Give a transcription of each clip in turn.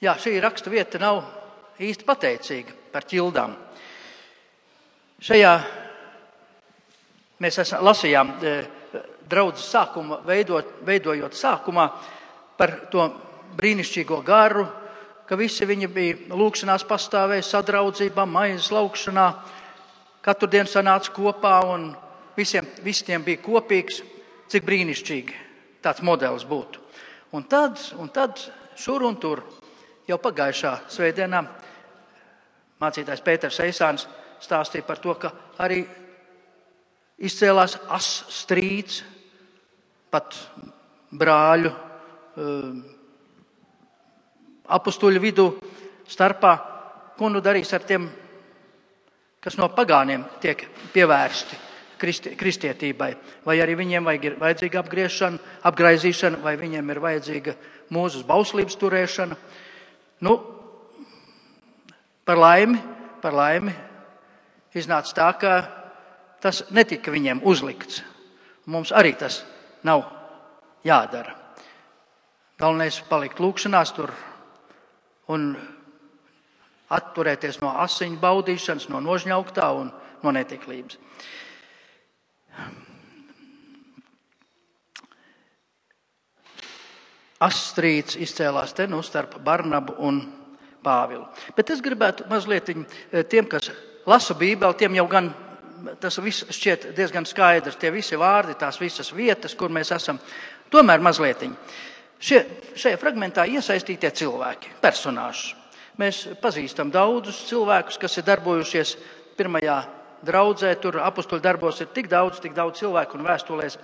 Jā, šī raksta vieta nav īsti pateicīga par ķildām. Šajā mēs lasījām draudzes sākuma, veidojot sākumā par to brīnišķīgo garu, ka visi viņi bija lūkšanās pastāvēja sadraudzībā, maizes laukšanā, katru dienu sanāca kopā un visiem bija kopīgs, cik brīnišķīgi tāds modelis būtu. Un tad šur un tur jau pagājušā svētdienā mācītājs Pēters Eisāns stāstīja par to, ka arī izcēlās strīds pat brāļu apustuļu vidū starpā, ko nu darīs ar tiem, kas no pagāniem tiek pievērsti kristietībai. Vai arī viņiem ir vajadzīga apgraizīšana, vai viņiem ir vajadzīga mūzes bauslības turēšana. Nu, par laimi iznāca tā, ka tas netika viņiem uzlikts. Mums arī tas nav jādara. Galvenais palikt lūkšanās tur un atturēties no asiņu baudīšanas, no nožņauktā un no netiklības. Strīds izcēlās te starp Barnabu un Pāvilu. Bet es gribētu mazliet tiem, kas lasa Bībeli, tiem jau gan tas viss šķiet diezgan skaidrs, tie visi vārdi, tās visas vietas, kur mēs esam. Tomēr mazliet šajā fragmentā iesaistītie cilvēki, personāži. Mēs pazīstam daudzus cilvēkus, kas ir darbojušies pirmajā draudzē, tur apustuļu darbos ir tik daudz cilvēku un vēstulēs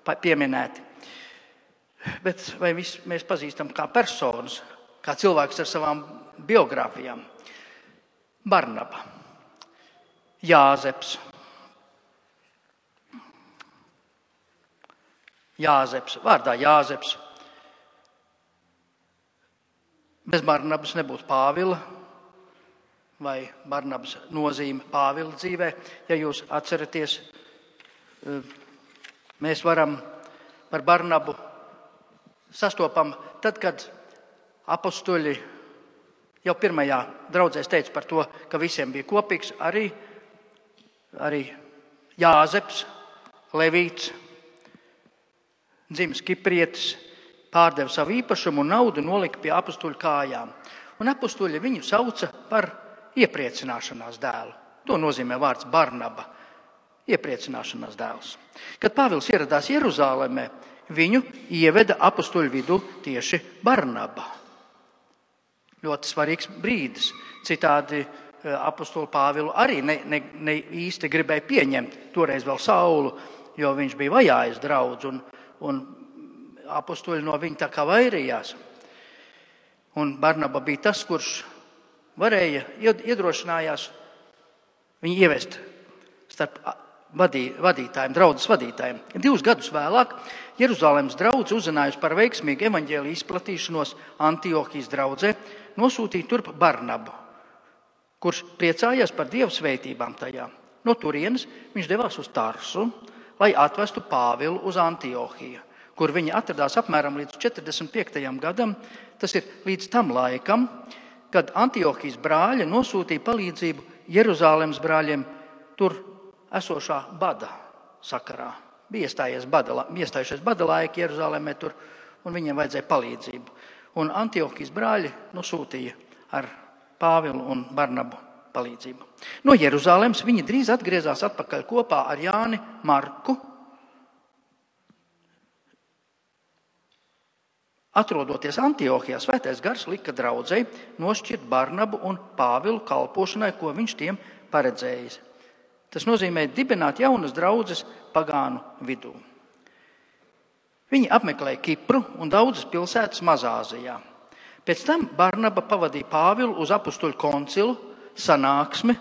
pieminēti. Bet vai mēs pazīstam kā personas, kā cilvēks ar savām biogrāfijām? Barnaba, Jāzeps, vārdā Jāzeps. Bez Barnabas nebūtu Pāvila vai Barnabas nozīme Pāvila dzīvē. Ja jūs atceraties, mēs varam par Barnabu sastopam tad, kad apustuļi jau pirmajā draudzēs teica par to, ka visiem bija kopīgs arī Jāzeps, Levīts, dzimis Kiprietis, pārdeva savu īpašumu un naudu nolika pie apustuļu kājām. Un apustuļi viņu sauca par iepriecināšanās dēlu. To nozīmē vārds Barnaba, iepriecināšanās dēls. Kad Pāvils ieradās Jeruzālēmē, viņu ieveda apustuļu vidū tieši Barnaba. Ļoti svarīgs brīdis. Citādi apustuļu Pāvilu arī ne īsti gribēja pieņemt toreiz vēl Saulu, jo viņš bija vajājis draudz un apustuļi no viņa tā kā vairījās. Un Barnaba bija tas, kurš iedrošinājās viņu ievest starp vadītājiem, draudzes vadītājiem. 2 gadus vēlāk Jeruzalemes draudze uzzinājusi par veiksmīgu evaņģēliju izplatīšanos Antiohijas draudzē, nosūtīja turp Barnabu, kurš priecājās par Dieva svētībām tajā. No turienes viņš devās uz Tarsu, lai atvestu Pāvilu uz Antiohiju, kur viņi atradās apmēram līdz 45. gadam, tas ir līdz tam laikam, kad Antiohijas brāļi nosūtīja palīdzību Jeruzalemes brāļiem tur esošā bada sakarā. Bija iestājušies bada laiki Jeruzālēmē tur, un viņiem vajadzēja palīdzību. Un Antiohijas brāļi nosūtīja ar Pāvilu un Barnabu palīdzību. No Jeruzālēmas viņi drīz atgriezās atpakaļ kopā ar Jāni Marku. Atrodoties Antiohijā, Svētais Gars lika draudzei nošķirt Barnabu un Pāvilu kalpošanai, ko viņš tiem paredzējis. Tas nozīmē dibināt jaunas draudzes pagānu vidū. Viņi apmeklēja Kipru un daudzas pilsētas Mazāzijā. Pēc tam Barnaba pavadīja Pāvilu uz apustuļu koncilu sanāksmi,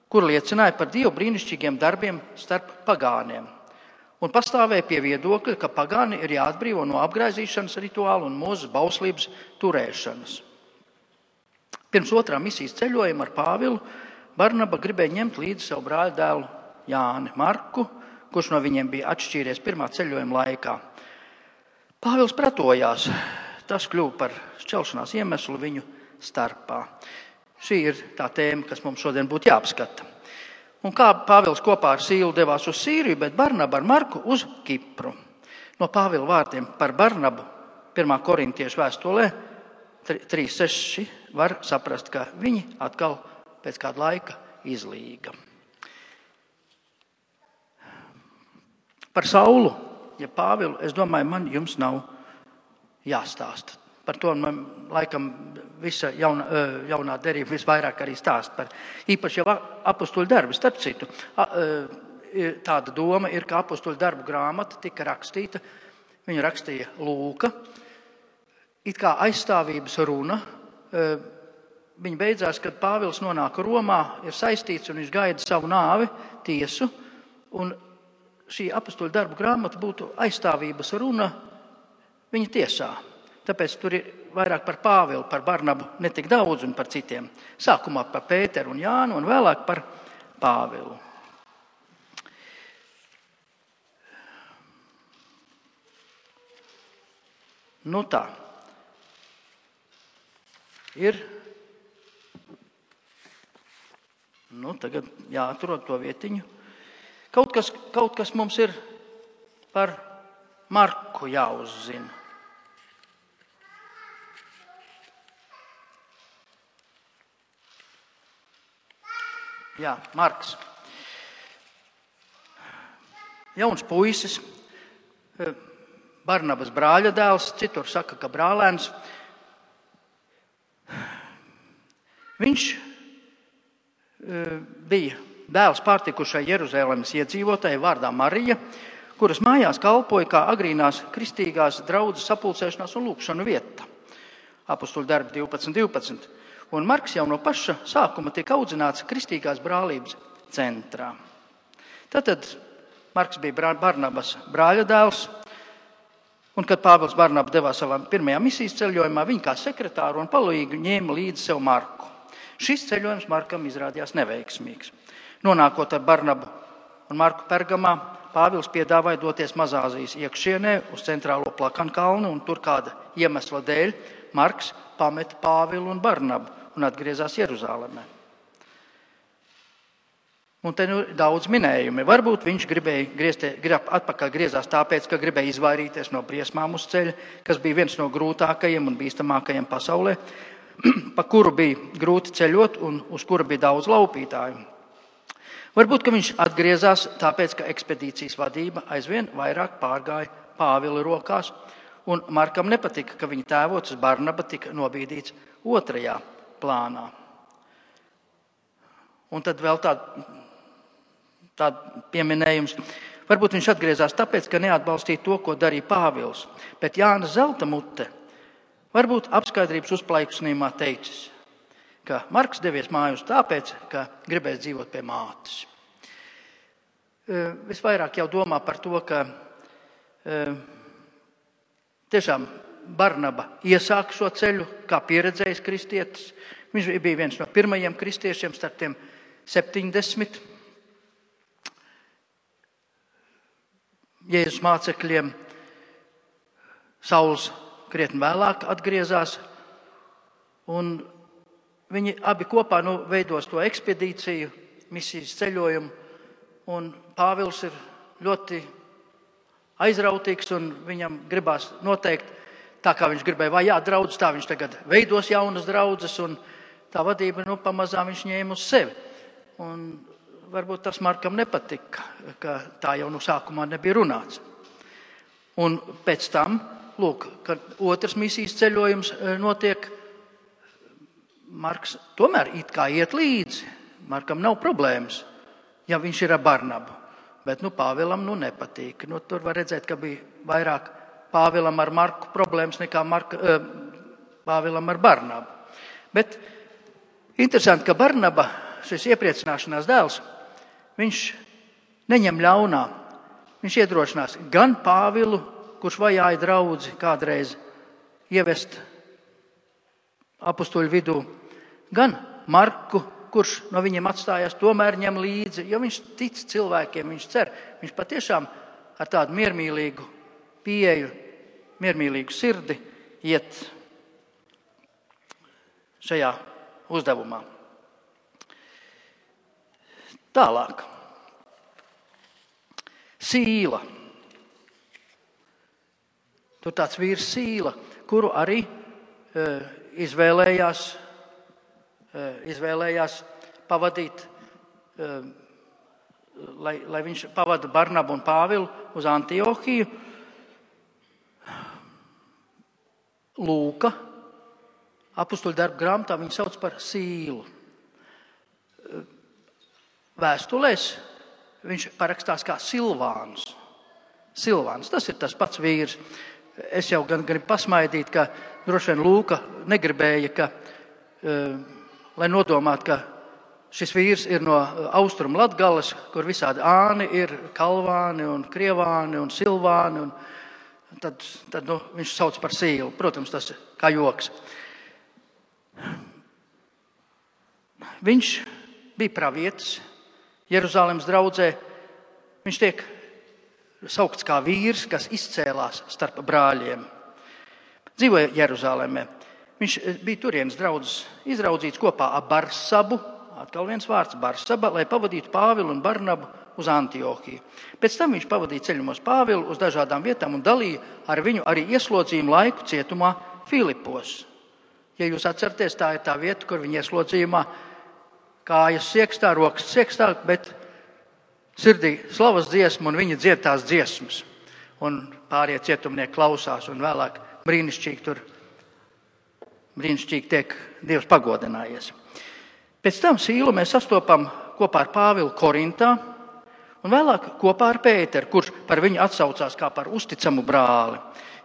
kur liecināja par Dievu brīnišķīgiem darbiem starp pagāniem. Un pastāvēja pie viedokļa, ka pagāni ir jāatbrīvo no apgraizīšanas rituāla un mūzes bauslības turēšanas. Pirms otrā misijas ceļojuma ar Pāvilu Barnaba gribēja ņemt līdzi savu brāļu dēlu Jāni Marku, kurš no viņiem bija atšķīries pirmā ceļojuma laikā. Pāvils pretojās tas kļuva par šķelšanās iemeslu viņu starpā. Šī ir tā tēma, kas mums šodien būtu jāapskata. Un kā Pāvils kopā ar Sīlu devās uz Sīriju, bet Barnaba ar Marku uz Kipru. No Pāvila vārdiem par Barnabu 1. Korintiešu vēstulē 3:6 var saprast, ka viņi atkal pēc kāda laika izlīga. Par Saulu, ja Pāvilu, es domāju, man jums nav jāstāsta. Par to man laikam visa jaunā derība visvairāk arī stāst par īpaši jau apostoļu darbu. Starp citu, tāda doma ir, ka apostoļu darbu grāmata tika rakstīta, viņu rakstīja Lūka, it kā aizstāvības runa. Viņa beidzās, kad Pāvils nonāk Romā, ir saistīts un viņš gaida savu nāvi, tiesu, un šī apostoļu darbu grāmata būtu aizstāvības runa viņa tiesā. Tāpēc tur ir vairāk par Pāvilu, par Barnabu netik daudz un par citiem. Sākumā par Pēteru un Jānu un vēlāk par Pāvilu. Nu tā. Ir. Tagad jāatrod to vietiņu. Kaut kas mums ir par Marku jāuzzina. Jā, Marks. Jauns puisis, Barnabas brāļa dēls, citur saka, ka brālēns. Viņš bija dēls pārtikušai Jeruzalemes iedzīvotājai vārdā Marija, kuras mājās kalpoja kā agrīnās kristīgās draudzes sapulcēšanās un lūkšanu vieta. Apostoļu darbi 12. Un Marks jau no paša sākuma tiek audzināts kristīgās brālības centrā. Tātad Marks bija Barnabas brāļa dēls, un kad Pāvils Barnabu devās savā pirmajā misijas ceļojumā, viņa kā sekretāru un palīgu ņēma līdzi sev Marku. Šis ceļojums Markam izrādījās neveiksmīgs. Nonākot ar Barnabu un Marku Pergamā, Pāvils piedāvāja doties Mazāzijas iekšienē uz centrālo Plakanu kalnu, un tur kāda iemesla dēļ Marks pameta Pāvilu un Barnabu un atgriezās Jeruzālēmē. Un te daudz minējumi. Varbūt viņš atpakaļ griezās tāpēc, ka gribēja izvairīties no briesmām uz ceļa, kas bija viens no grūtākajiem un bīstamākajiem pasaulē, pa kuru bija grūti ceļot un uz kura bija daudz laupītāju. Varbūt, ka viņš atgriezās tāpēc, ka ekspedīcijas vadība aizvien vairāk pārgāja Pāvila rokās, un Markam nepatika, ka viņa tēvocis Barnaba tika nobīdīts otrajā plānā. Un tad vēl tāda pieminējums. Varbūt viņš atgriezās tāpēc, ka neatbalstīja to, ko darīja Pāvils, bet Jāna Zelta mute varbūt apskaidrības uzplaiksnījumā teicis, ka Marks devies mājās tāpēc, ka gribēs dzīvot pie mātes. Visvairāk jau domā par to, ka tiešām Barnaba iesāka šo ceļu kā pieredzējis kristietis. Viņš bija viens no pirmajiem kristiešiem starp tiem 70 Jēzus mācekļiem. Sauls krietni vēlāk atgriezās, un viņi abi kopā veidos to ekspedīciju, misijas ceļojumu, un Pāvils ir ļoti aizrautīgs, un viņam gribās noteikt, tā kā viņš gribēja vajāt draudzes, tā viņš tagad veidos jaunas draudzes, un tā vadība pamazām viņš ņēma uz sevi. Un varbūt tas Markam nepatika, ka tā jau no sākumā nebija runāts. Un pēc tam, kad otrs misijas ceļojums notiek, Marks tomēr it kā iet līdzi. Markam nav problēmas, ja viņš ir ar Barnabu. Bet Pāvilam nepatīk. Tur var redzēt, ka bija vairāk Pāvilam ar Marku problēmas nekā Pāvilam ar Barnabu. Bet interesanti, ka Barnaba, šis iepriecināšanās dēls, viņš neņem ļaunā. Viņš iedrošinās gan Pāvilu, kurš vajāja draudzi kādreiz ievest apostoļu vidū, gan Marku, kurš no viņiem atstājās, tomēr ņem līdzi, jo viņš tic cilvēkiem, viņš cer. Viņš patiešām ar tādu miermīlīgu pieeju, miermīlīgu sirdi iet šajā uzdevumā. Tālāk. Sīla. Tur tāds vīrs Sīla, kuru arī izvēlējās pavadīt, lai viņš pavada Barnabu un Pāvilu uz Antiohiju. Lūka apustuļu darbu grāmatā viņu sauc par Sīlu. Vēstulēs viņš parakstās kā Silvāns. Silvāns, tas ir tas pats vīrs. Es jau gan gribu pasmaidīt, ka droši vien Lūka negribēja, lai nodomātu, ka šis vīrs ir no Austrumu Latgales, kur visādi āni ir, Kalvāni un Krievāni un Silvāni. Un tad viņš sauc par Sīlu. Protams, tas ir kā joks. Viņš bija pravietis Jeruzalemes draudzē. Viņš tiek saukts kā vīrs, kas izcēlās starp brāļiem. Dzīvoja Jeruzalemē. Viņš bija turienes draudzes izraudzīts kopā ar Barsabu, atkal viens vārds Barsaba, lai pavadītu Pāvilu un Barnabu uz Antiohiju. Pēc tam viņš pavadīja ceļumos Pāvilu uz dažādām vietām un dalīja ar viņu arī ieslodzījumu laiku cietumā Filipos. Ja jūs atceraties, tā ir tā vieta, kur viņa ieslodzījumā kājas siekstā, rokas siekstā, bet sirdī slavas dziesma un viņa dzied tās dziesmas. Un pārējie cietumnieki klausās un vēlāk brīnišķīgi tiek Dievs pagodinājies. Pēc tam Sīlu mēs sastopam kopā ar Pāvilu Korintā un vēlāk kopā ar Pēteru, kurš par viņu atsaucās kā par uzticamu brāli.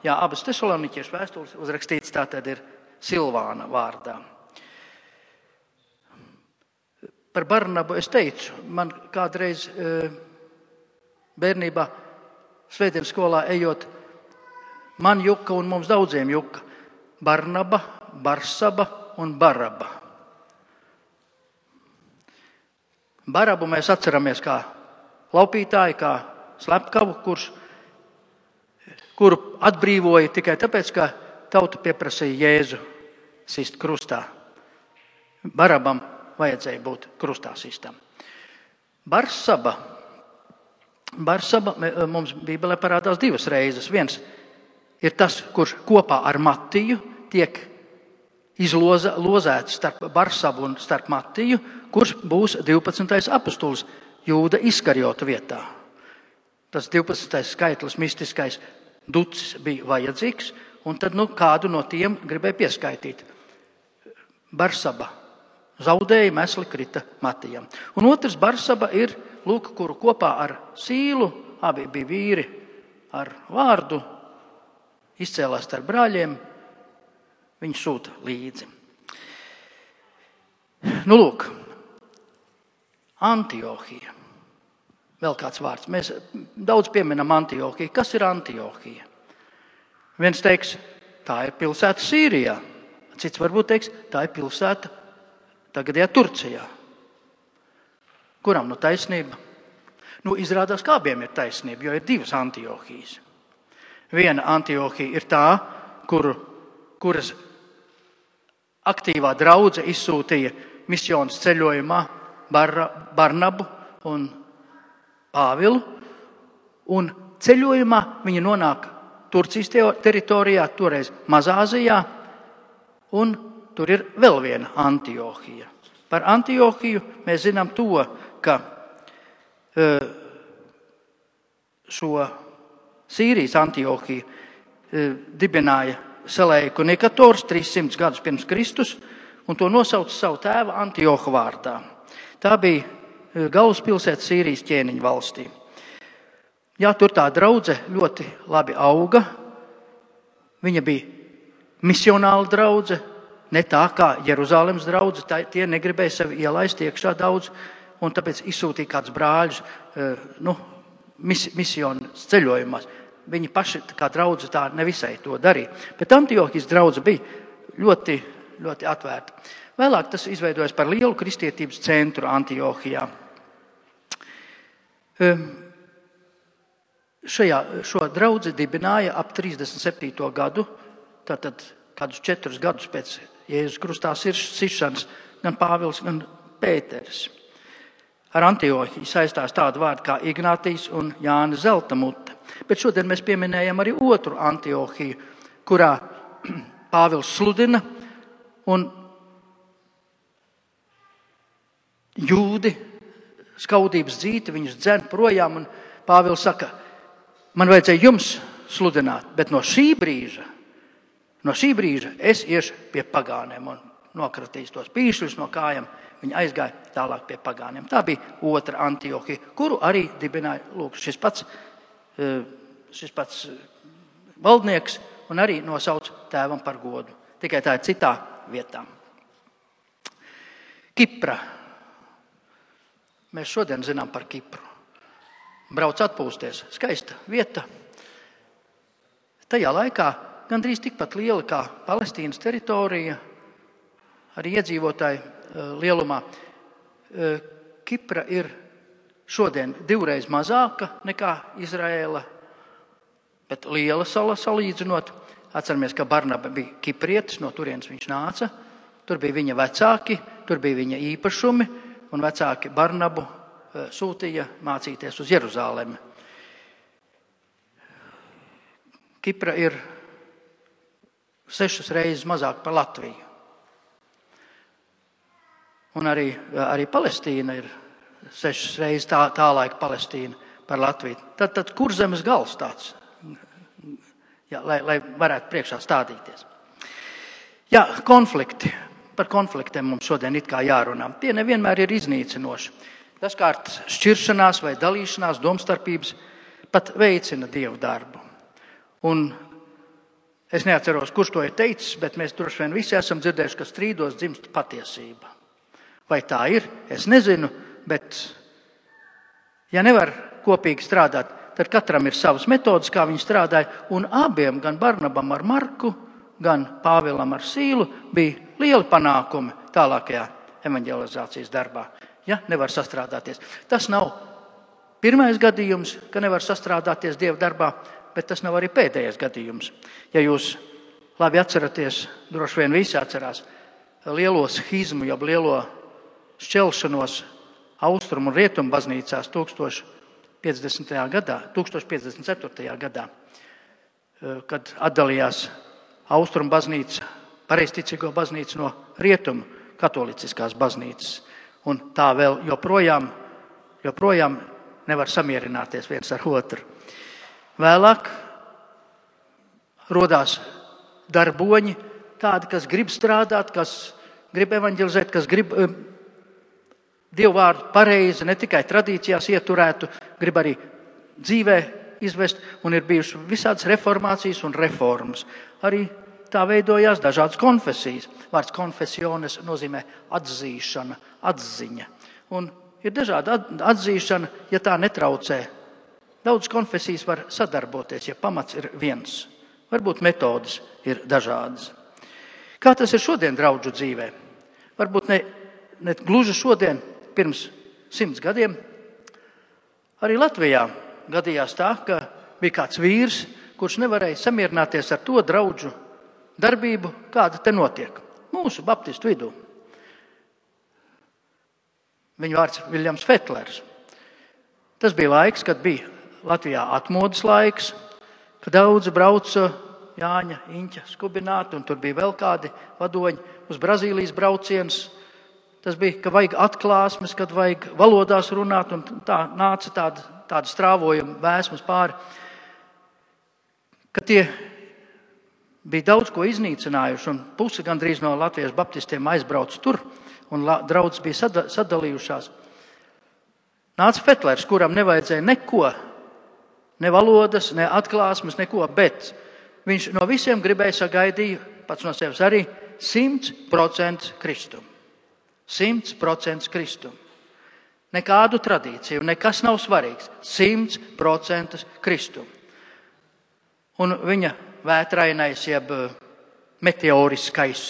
Jā, abas Tesaloniķiešu vēstules uzrakstītas tātad ir Silvāna vārdā. Par Barnabu es teicu, man kādreiz bērnībā svētdienas skolā ejot, man juka un mums daudziem juka Barnaba, Barsaba un Baraba. Barabu mēs atceramies kā laupītāju, kā slepkavu, kuru atbrīvoja tikai tāpēc, ka tauta pieprasīja Jēzu sist krustā. Barabam vajadzēja būt krustā sistam. Barsaba mums Bībelē parādās divas reizes. Viens ir tas, kurš kopā ar Matiju tiek izlozēts starp Barsabu un starp Matiju, kurš būs 12. apustulis Jūda Iskariota vietā. Tas 12. skaitlis, mistiskais ducis bija vajadzīgs, un tad kādu no tiem gribēja pieskaitīt. Barsaba zaudēja, mesli krita Matijam. Un otrs Barsaba ir, kuru kopā ar Sīlu, abi bija vīri ar vārdu, izcēlās starp brāļiem, viņu sūta līdzi. Antiohija. Vēl kāds vārds. Mēs daudz pieminam Antiohiju. Kas ir Antiohija? Viens teiks, tā ir pilsēta Sīrijā. Cits varbūt teiks, tā ir pilsēta tagadējā Turcijā. Kuram taisnība? Izrādās, kā abiem ir taisnība, jo ir divas Antiohijas. Viena Antiohija ir tā, kuras aktīvā draudze izsūtīja misjonas ceļojumā Barnabu un Pāvilu, un ceļojumā viņi nonāk Turcijas teritorijā, toreiz Mazāzijā, un tur ir vēl viena Antiohija. Par Antiohiju mēs zinām to, ka šo Sīrijas Antiohiju dibināja Seleuku Nikators 300 gadus pirms Kristus, un to nosauca savu tēva Antioha vārdā. Tā bija galvaspilsēta Sīrijas ķēniņu valstī. Jā, tur tā draudze ļoti labi auga. Viņa bija misionāla draudze, ne tā kā Jeruzalemes draudze. Tie negribēja sevi ielaist iekšā daudz, un tāpēc izsūtīja kāds brāļus misjonas ceļojumās. Viņi paši kā draudze tā nevisai to darīja. Bet Antiohijas draudze bija ļoti, ļoti atvērta. Vēlāk tas izveidojas par lielu kristietības centru Antiohijā. Šo draudzi dibināja ap 37. gadu tātad kādus 4 gadus pēc Jēzus krustā sišanas, gan Pāvils, gan Pēteris. Ar Antiohiju saistās tādu vārdu kā Ignātijs un Jāna Zeltamute. Bet šodien mēs pieminējam arī otru Antiohiju, kurā Pāvils sludina un jūdi skaudības dzīti, viņus dzen projām, un Pāvils saka, man vajadzēja jums sludināt, bet no šī brīža es iešu pie pagāniem un nokratīs tos pīšļus no kājām. Viņi aizgāja tālāk pie pagāniem. Tā bija otra Antiohija, kuru arī dibināja šis pats valdnieks un arī nosauc tēvam par godu. Tikai tā ir citā vietā. Kipra. Mēs šodien zinām par Kipru. Brauc atpūsties. Skaista vieta. Tajā laikā gandrīz tikpat liela kā Palestīnas teritorija, arī iedzīvotāji lielumā. Kipra ir šodien 2 mazāka nekā Izraēla, bet liela sala salīdzinot. Atceramies, ka Barnaba bija kiprietis, no turienes viņš nāca. Tur bija viņa vecāki, tur bija viņa īpašumi, un vecāki Barnabu sūtīja mācīties uz Jeruzalemi. Kipra ir 6 reizes mazāk par Latviju. Un arī Palestīna ir 6 reizes tā laika Palestīna par Latviju. Tad kur zemes gals tāds? Jā, lai varētu priekšā stādīties. Jā, konflikti. Par konfliktiem mums šodien it kā jārunā. Tie nevienmēr ir iznīcinoši. Dažkārt šķiršanās vai dalīšanās, domstarpības pat veicina Dievu darbu. Un es neatceros, kurš to ir teicis, bet mēs droši vien visi esam dzirdējuši, ka strīdos dzimst patiesība. Vai tā ir? Es nezinu, bet ja nevar kopīgi strādāt, tad katram ir savas metodas, kā viņi strādāja, un abiem, gan Barnabam ar Marku, gan Pāvilam ar Sīlu, bija lieli panākumi tālākajā evanģelizācijas darbā, ja nevar sastrādāties. Tas nav pirmais gadījums, ka nevar sastrādāties Dieva darbā, bet tas nav arī pēdējais gadījums. Ja jūs labi atceraties, droši vien visi atcerās, lielo schizmu, jeb lielo šķelšanos Austrumu un Rietumu baznīcās 1054. gadā, kad atdalījās Austrumu baznīca, pareizticīgo baznīca no Rietumu katoliciskās baznīcas. Un tā vēl joprojām nevar samierināties viens ar otru. Vēlāk rodās darboņi, tādi, kas grib strādāt, kas grib evanģelizēt, kas grib Dievu vārdu pareizi, ne tikai tradīcijās ieturētu, grib arī dzīvē izvest, un ir bijušas visādas reformācijas un reformas. Arī tā veidojās dažādas konfesijas. Vārds konfesiones nozīmē atzīšana, atziņa. Un ir dažāda atzīšana, ja tā netraucē. Daudz konfesijas var sadarboties, ja pamats ir viens. Varbūt metodas ir dažādas. Kā tas ir šodien draudžu dzīvē? Varbūt ne gluži šodien, pirms 100 gadiem. Arī Latvijā gadījās tā, ka bija kāds vīrs, kurš nevarēja samierināties ar to draudžu darbību, kāda te notiek mūsu baptistu vidū. Viņa vārds Viljams Fetlers. Tas bija laiks, kad bija Latvijā atmodas laiks, kad daudzi brauca Jāņa, Iņķa skubināti, un tur bija vēl kādi vadoņi uz Brazīlijas brauciens. Tas bija, ka vajag atklāsmes, kad vajag valodās runāt, un tā nāca tāda strāvojuma vēsmas pāri. Kad tie bija daudz ko iznīcinājuši, un pusi gandrīz no Latvijas baptistiem aizbrauc tur, un draudzes bija sadalījušās. Nāca Fetlers, kuram nevajadzēja neko, ne valodas, ne atklāsmes, neko, bet viņš no visiem gribēja sagaidīja, pats no sevis arī, 100% kristumu. 100% kristumu. Nekādu tradīciju, nekas nav svarīgs. 100% kristumu. Un viņa vētrainais, jeb meteoriskais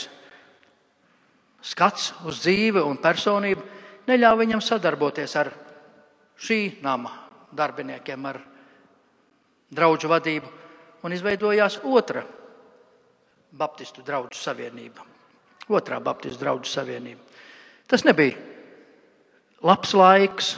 skats uz dzīvi un personību neļauj viņam sadarboties ar šī nama darbiniekiem, ar draudžu vadību. Un izveidojās otra Baptistu draugu savienība. Otrā Baptistu draugu savienība. Tas nebija labs laiks.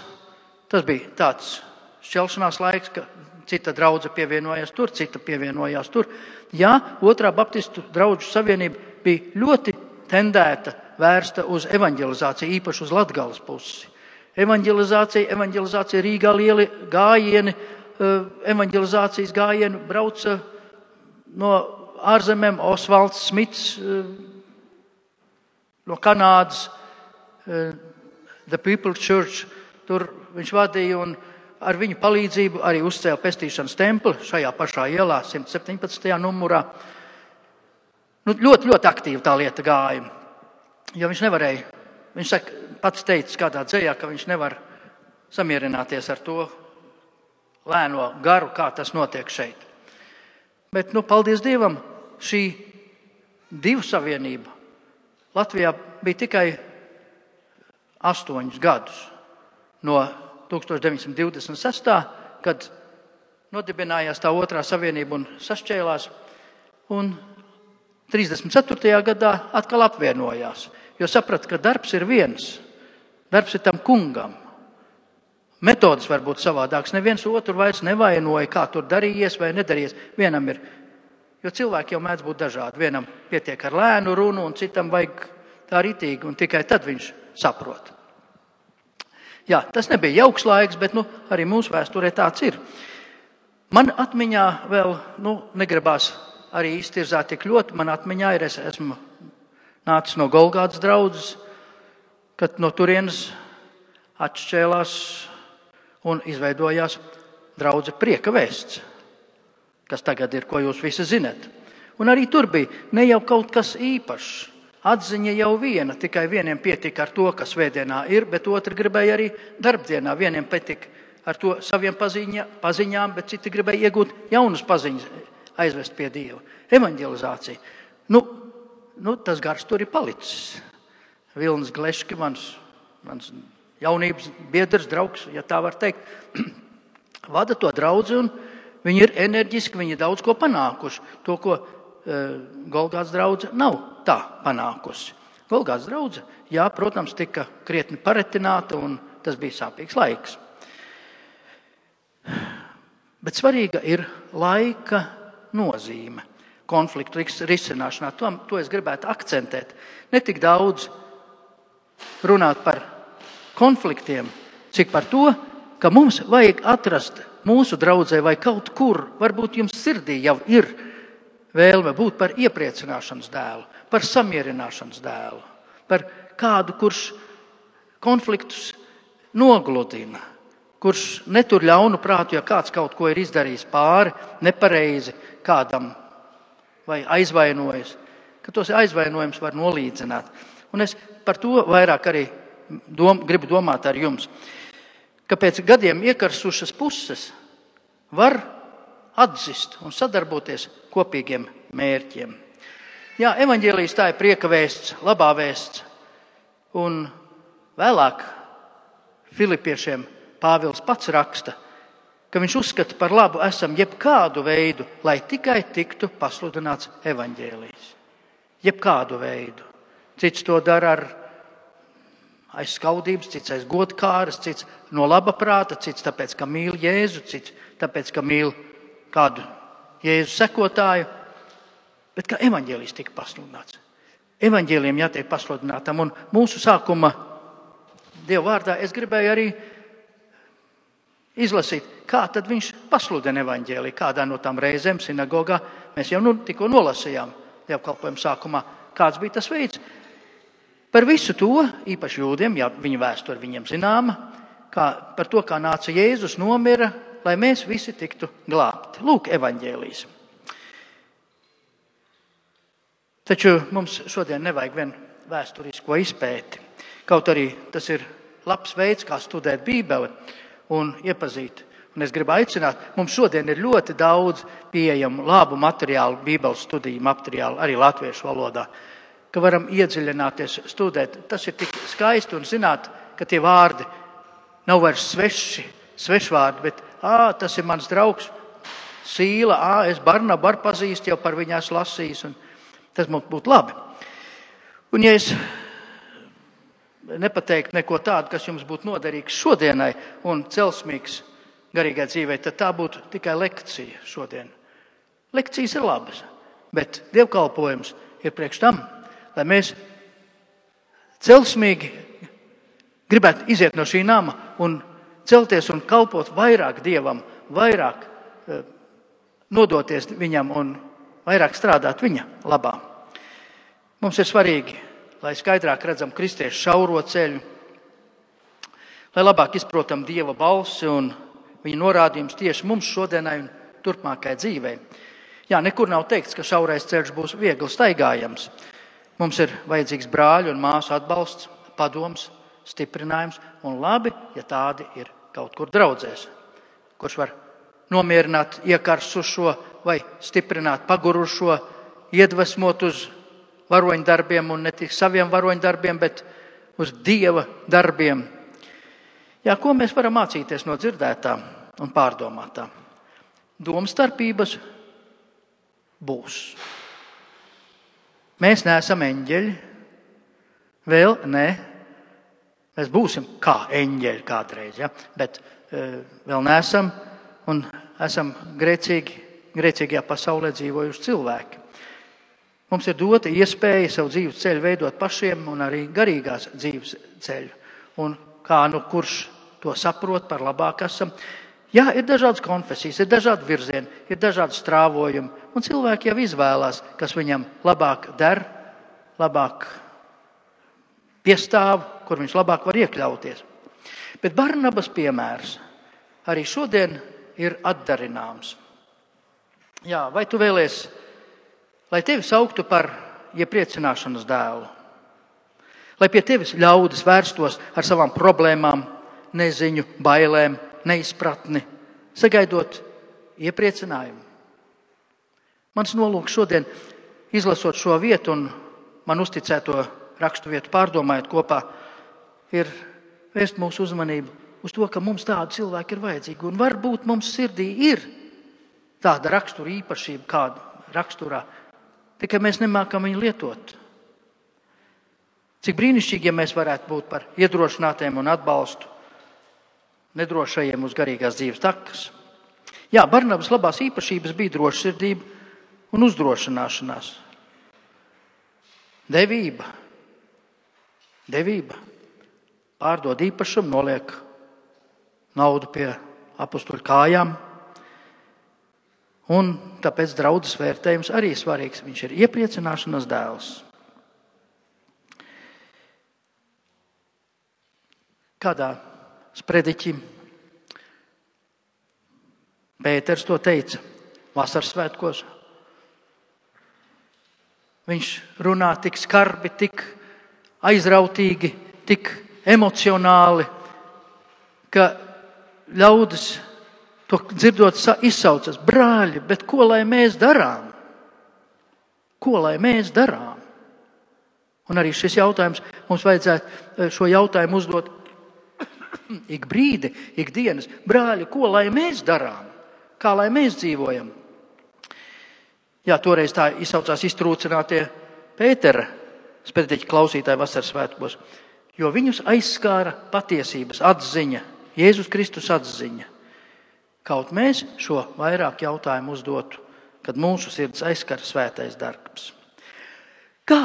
Tas bija tāds šķelšanās laiks, ka cita draudze pievienojās tur, cita pievienojās tur. Jā, otrā Baptistu draugu savienība bija ļoti tendēta, vērsta uz evanģelizāciju, īpaši uz Latgales pusi. Evanģelizācija Rīgā lieli gājieni, evanģelizācijas gājieni brauca no ārzemēm, Osvalds Smits no Kanādas, The People Church, tur viņš vadīja un ar viņu palīdzību arī uzcēla pestīšanas templi šajā pašā ielā, 117. numurā. Ļoti, ļoti aktīvi tā lieta gāja. Jo viņš nevarēja, viņš pats teica kādā dzejā, ka viņš nevar samierināties ar to lēno garu, kā tas notiek šeit. Bet, paldies Dievam, šī divu savienība Latvijā bija tikai 8 gadus. No 1926. kad nodibinājās tā otrā savienība un sašķēlās, un 34. gadā atkal apvienojās, jo saprata, ka darbs ir viens, darbs ir tam kungam. Metodas var būt savādākas, neviens otru vairs nevainoja, kā tur darījies vai nedarījies. Vienam ir, jo cilvēki jau mēdz būt dažādi, vienam pietiek ar lēnu runu un citam vajag tā ritīgi, un tikai tad viņš saprot. Jā, tas nebija jauks laiks, bet arī mūsu vēsturē tāds ir. Man atmiņā vēl, negribās arī iztirzāt tik ļoti, man atmiņā ir, es esmu nācis no Golgātas draudzes, kad no turienes atšķēlās un izveidojās draudze Prieka vēsts, kas tagad ir, ko jūs visi zinat. Un arī tur bija ne jau kaut kas īpašs. Atziņa jau viena, tikai vieniem pietika ar to, kas svētdienā ir, bet otri gribēja arī darbdienā. Vieniem pietika ar to saviem paziņām, bet citi gribēja iegūt jaunas paziņas, aizvest pie Dieva. Evanģelizācija. Tas gars tur ir palicis. Vilnis Gleški, mans jaunības biedrs, draugs, ja tā var teikt, vada to draudzi, un viņi ir enerģiski, viņi daudz ko panākuši. To, ko Golgātas draudze nav tā panākusi. Golgātas draudze, jā, protams, tika krietni paretināta, un tas bija sāpīgs laiks. Bet svarīga ir laika nozīme konfliktu risināšanā. To es gribētu akcentēt. Ne tik daudz runāt par konfliktiem, cik par to, ka mums vajag atrast mūsu draudzē vai kaut kur, varbūt jums sirdī jau ir vēlme būt par iepriecināšanas dēlu, par samierināšanas dēlu, par kādu, kurš konfliktus nogludina, kurš netur ļaunu prātu, ja kāds kaut ko ir izdarījis pāri, nepareizi kādam vai aizvainojas, ka tos aizvainojums var nolīdzināt. Un es par to vairāk arī gribu domāt ar jums, ka pēc gadiem iekarsušas puses var atzist un sadarboties kopīgiem mērķiem. Jā, evaņģēlijs tā ir prieka vēsts, labā vēsts. Un vēlāk Filipiešiem Pāvils pats raksta, ka viņš uzskata par labu esam jebkādu veidu, lai tikai tiktu pasludināts evaņģēlijs. Jebkādu veidu. Cits to dara ar aiz skaudības, cits aiz godkāras, cits no laba prāta, cits tāpēc, ka mīl Jēzu, cits tāpēc, ka mīl kādu Jēzu sekotāju, bet ka evaņģēlijs tika pasludināts. Evaņģēlijam jātiek pasludinātam, un mūsu sākuma Dieva vārdā es gribēju arī izlasīt, kā tad viņš pasludina evaņģēliju, kādā no tām reizēm sinagogā. Mēs jau tikko nolasījām dievkalpojuma sākumā, kāds bija tas veids. Par visu to, īpaši jūdiem, ja viņa vēsture viņiem zināma, par to, kā nāca Jēzus, nomira, lai mēs visi tiktu glābti. Lūk, evaņģēlijs. Taču mums šodien nevajag vien vēsturisko izpēti. Kaut arī tas ir labs veids, kā studēt Bībeli un iepazīt. Un es gribu aicināt, mums šodien ir ļoti daudz pieejamu labu materiālu, Bībeles studiju materiālu, arī latviešu valodā, ka varam iedziļināties, studēt. Tas ir tik skaisti un zināt, ka tie vārdi nav vairs svešvārdi, bet tas ir mans draugs Sīla, es Barnabu pazīstu, jau par viņu esmu lasījis. Tas mums būtu labi. Un ja es nepateiktu neko tādu, kas jums būtu noderīgs šodienai un celsmīgs garīgai dzīvei, tad tā būtu tikai lekcija šodien. Lekcijas ir labas, bet dievkalpojums ir priekš tam, lai mēs celsmīgi gribētu iziet no šī nama un celties un kalpot vairāk Dievam, vairāk nodoties viņam un vairāk strādāt viņa labā. Mums ir svarīgi, lai skaidrāk redzam kristiešu šauro ceļu, lai labāk izprotam Dieva balsi un viņa norādījums tieši mums šodienai un turpmākai dzīvei. Jā, nekur nav teikts, ka šaurais ceļš būs viegli staigājams. Mums ir vajadzīgs brāļu un māsu atbalsts, padoms, stiprinājums un labi, ja tādi ir kaut kur draudzēs, kurš var nomierināt iekarsušo vai stiprināt pagurušo, iedvesmot uz varoņdarbiem un ne tik saviem varoņdarbiem, bet uz Dieva darbiem. Jā, ko mēs varam mācīties no dzirdētā un pārdomātā? Domstarpības būs. Mēs neesam eņģeļi, vēl ne. Mēs būsim kā eņģeļi kādreiz, ja? Bet vēl neesam un esam grēcīgajā pasaulē dzīvojuši cilvēki. Mums ir dota iespēja savu dzīves ceļu veidot pašiem un arī garīgās dzīves ceļu. Un kā kurš to saprot, par labāk esam. Jā, ir dažādas konfesijas, ir dažādi virzieni, ir dažādi strāvojumi. Un cilvēki jau izvēlās, kas viņam labāk der, labāk piestāv, kur viņš labāk var iekļauties. Bet Barnabas piemērs arī šodien ir atdarināms. Jā, vai tu vēlies, lai tevi sauktu par iepriecināšanas dēlu? Lai pie tevis ļaudis vērstos ar savām problēmām, neziņu, bailēm, neizpratni, sagaidot iepriecinājumu? Mans nolūks šodien, izlasot šo vietu un man uzticēto rakstu vietu pārdomājot kopā, ir vērst mūsu uzmanību uz to, ka mums tādu cilvēku ir vajadzīgi. Un varbūt mums sirdī ir tāda rakstura īpašība, kāda raksturā, tikai mēs nemākam viņu lietot. Cik brīnišķīgi, ja mēs varētu būt par iedrošinātiem un atbalstu nedrošajiem uz garīgās dzīves takas. Jā, Barnabas labās īpašības bija drošsirdība un uzdrošināšanās. Devība. Pārdod īpašumu, noliek naudu pie apostoļu kājām. Un tāpēc draudzes vērtējums arī svarīgs. Viņš ir iepriecināšanas dēls. Kādā sprediķi Pēters to teica vasaras svētkos. Viņš runā tik skarbi, tik aizrautīgi, tik emocionāli, ka ļaudis to dzirdot izsaucas: brāļi, bet ko lai mēs darām? Ko lai mēs darām? Un arī šis jautājums, mums vajadzētu šo jautājumu uzdot ik brīdi, ik dienas. Brāļi, ko lai mēs darām? Kā lai mēs dzīvojam? Jā, toreiz tā izsaucās iztrūcinātie Pētera sprediķa klausītāji vasaras svētkos, jo viņus aizskāra patiesības atziņa, Jēzus Kristus atziņa. Kaut mēs šo vairāk jautājumu uzdotu, kad mūsu sirds aizskara svētais darbs. Kā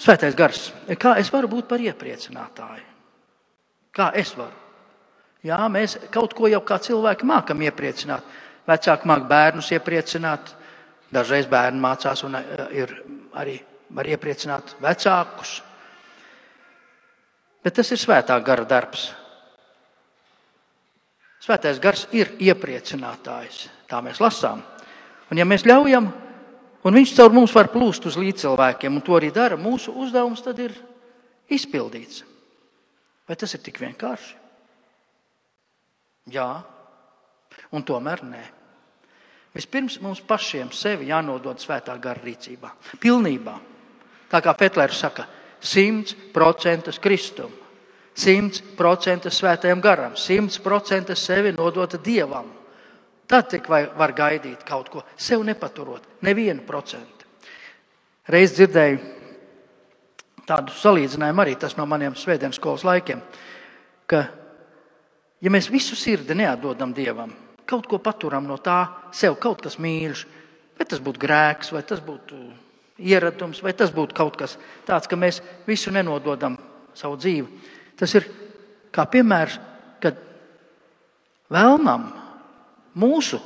svētais gars? Kā es varu būt par iepriecinātāju? Kā es varu? Jā, mēs kaut ko jau kā cilvēki mākam iepriecināt. Vecāki māk bērnus iepriecināt. Dažreiz bērni mācās un arī var iepriecināt vecākus. Bet tas ir svētā gara darbs. Svētais gars ir iepriecinātājs. Tā mēs lasām. Un ja mēs ļaujam, un viņš caur mums var plūst uz līdzcilvēkiem, un to arī dara, mūsu uzdevums tad ir izpildīts. Vai tas ir tik vienkārši? Jā, un tomēr nē. Vispirms mums pašiem sevi jānodod svētā gara rīcībā. Pilnībā. Tā kā Petlers saka, 100% Kristum, 100% svētajam garam, 100% sevi nodota Dievam. Tad tik var gaidīt kaut ko, sev nepaturot, nevienu procentu. Reiz dzirdēju tādu salīdzinājumu arī tas no maniem svētdienas skolas laikiem, ka, ja mēs visu sirdi neatdodam Dievam, kaut ko paturam no tā sev, kaut kas mīļš, vai tas būtu grēks, vai tas būtu ieradums, vai tas būtu kaut kas tāds, ka mēs visu nenododam savu dzīvi. Tas ir kā piemērs, kad vēlnam mūsu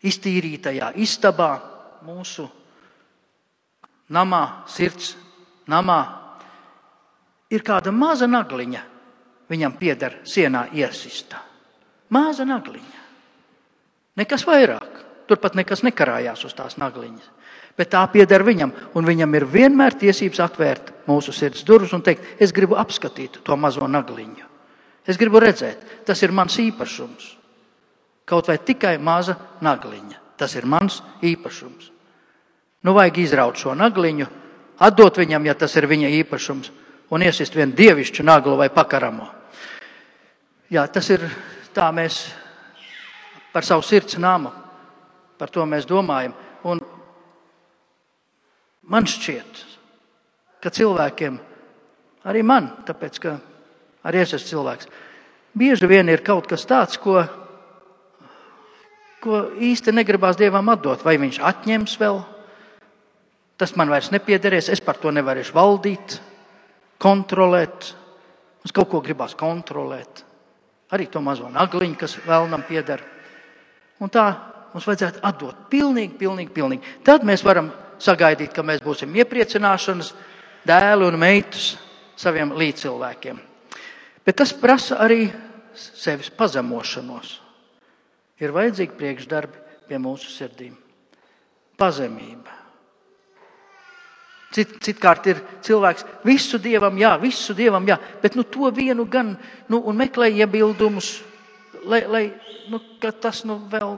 iztīrītajā istabā, mūsu namā, sirds namā, ir kāda maza nagliņa, viņam pieder sienā iesista. Maza nagliņa. Nekas vairāk. Turpat nekas nekarājās uz tās nagliņas. Bet tā pieder viņam, un viņam ir vienmēr tiesības atvērt mūsu sirds durvis un teikt, es gribu apskatīt to mazo nagliņu. Es gribu redzēt, tas ir mans īpašums. Kaut vai tikai maza nagliņa. Tas ir mans īpašums. Nu vajag izraut šo nagliņu, atdot viņam, ja tas ir viņa īpašums, un iesist vienu dievišķu naglu vai pakaramo. Jā, tas ir tā mēs par savu sirds namu, par to mēs domājam. Un man šķiet, ka cilvēkiem, arī man, tāpēc, ka arī es esmu cilvēks, bieži vien ir kaut kas tāds, ko īsti negribās Dievam atdot. Vai viņš atņems vēl? Tas man vairs nepiederēs, es par to nevarēšu valdīt, kontrolēt. Mums kaut ko gribās kontrolēt. Arī to mazo nagliņu, kas vēlnam pieder. Un tā mums vajadzētu atdot pilnīgi. Tad mēs varam sagaidīt, ka mēs būsim iepriecināšanas dēli un meitas saviem līdzcilvēkiem. Bet tas prasa arī sevis pazemošanos. Ir vajadzīgi priekšdarbi pie mūsu sirdīm. Pazemība. Citkārt ir cilvēks, visu Dievam jā, bet to vienu gan, un meklē iebildumus, lai tas vēl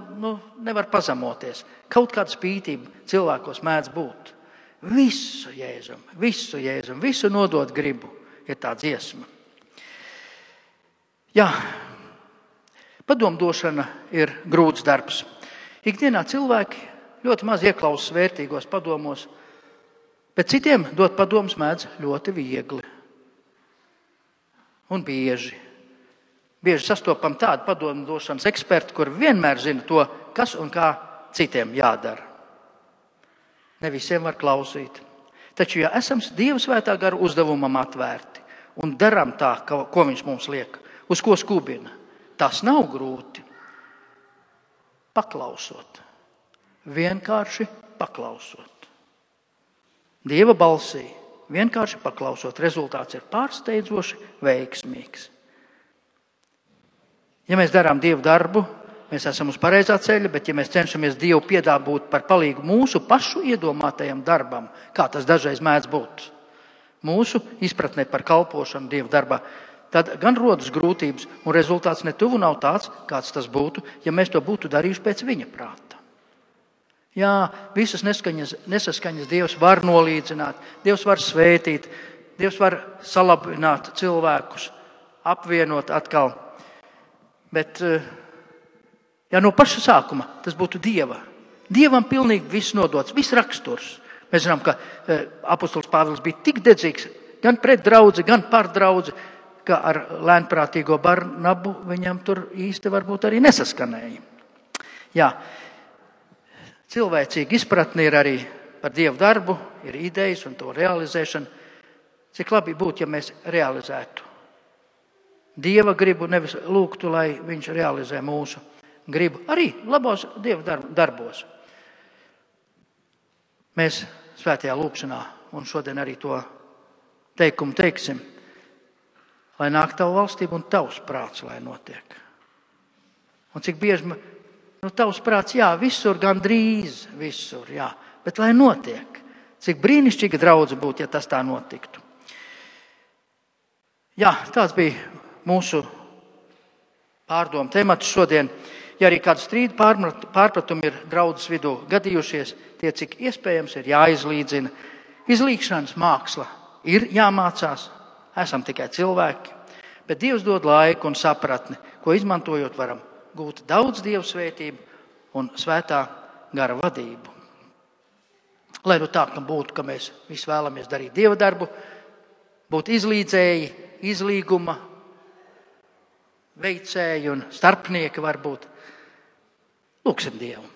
nevar pazemoties. Kaut kāda spītība cilvēkos mēdz būt. Visu Jēzum, visu nodot gribu, ir tā dziesma. Jā, padomdošana ir grūts darbs. Ikdienā cilvēki ļoti maz ieklausās vērtīgos padomos, bet citiem dot padomus mēdz ļoti viegli un bieži. Bieži sastopam tādu padomdošanas ekspertu, kur vienmēr zina to, kas un kā citiem jādara. Ne visiem var klausīt. Taču, ja esam Dieva svētā gara uzdevumam atvērti un darām tā, ko viņš mums liek, uz ko skubina, tas nav grūti. Paklausot. Vienkārši paklausot. Dieva balsī, vienkārši paklausot, rezultāts ir pārsteidzoši veiksmīgs. Ja mēs darām Dievu darbu, mēs esam uz pareizā ceļa, bet ja mēs cenšamies Dievu piedāvāt par palīgu mūsu pašu iedomātajam darbam, kā tas dažreiz mēdz būt, mūsu izpratnē par kalpošanu Dievu darbā, tad gan rodas grūtības, un rezultāts netuvu nav tāds, kāds tas būtu, ja mēs to būtu darījuši pēc viņa prāta. Jā, visas nesaskaņas Dievs var nolīdzināt, Dievs var svētīt, Dievs var salabināt cilvēkus, apvienot atkal. Bet ja no paša sākuma tas būtu Dieva. Dievam pilnīgi viss nodots, viss raksturs. Mēs zinām, ka apostols Pāvils bija tik dedzīgs gan pret draudzi, gan par draudzi, ka ar lēnprātīgo Barnabu viņam tur īsti varbūt arī nesaskanēja. Jā, cilvēcīga izpratne ir arī par Dievu darbu, ir idejas un to realizēšana. Cik labi būtu, ja mēs realizētu Dieva gribu, nevis lūgtu, lai viņš realizē mūsu gribu. Arī labos Dieva darbos. Mēs svētajā lūgšanā un šodien arī to teikumu teiksim, lai nāk tavu valstību un tavs prāts, lai notiek. Un cik bieži, tavs prāts, jā, visur, gandrīz visur, jā, bet lai notiek. Cik brīnišķīga draudze būtu, ja tas tā notiktu. Jā, tāds bija mūsu pārdomu temats šodien. Ja arī kāds strīdu pārpratumi ir draudzes vidū gadījušies, tie, cik iespējams, ir jāizlīdzina. Izlīgšanas māksla ir jāmācās, esam tikai cilvēki, bet Dievs dod laiku un sapratni, ko izmantojot varam gūt daudz Dieva svētību un svētā gara vadību. Lai nu tā būtu, ka mēs visi vēlamies darīt Dieva darbu, būt izlīdzēji, izlīguma veicēji un starpnieki varbūt. Lūksim Dievu.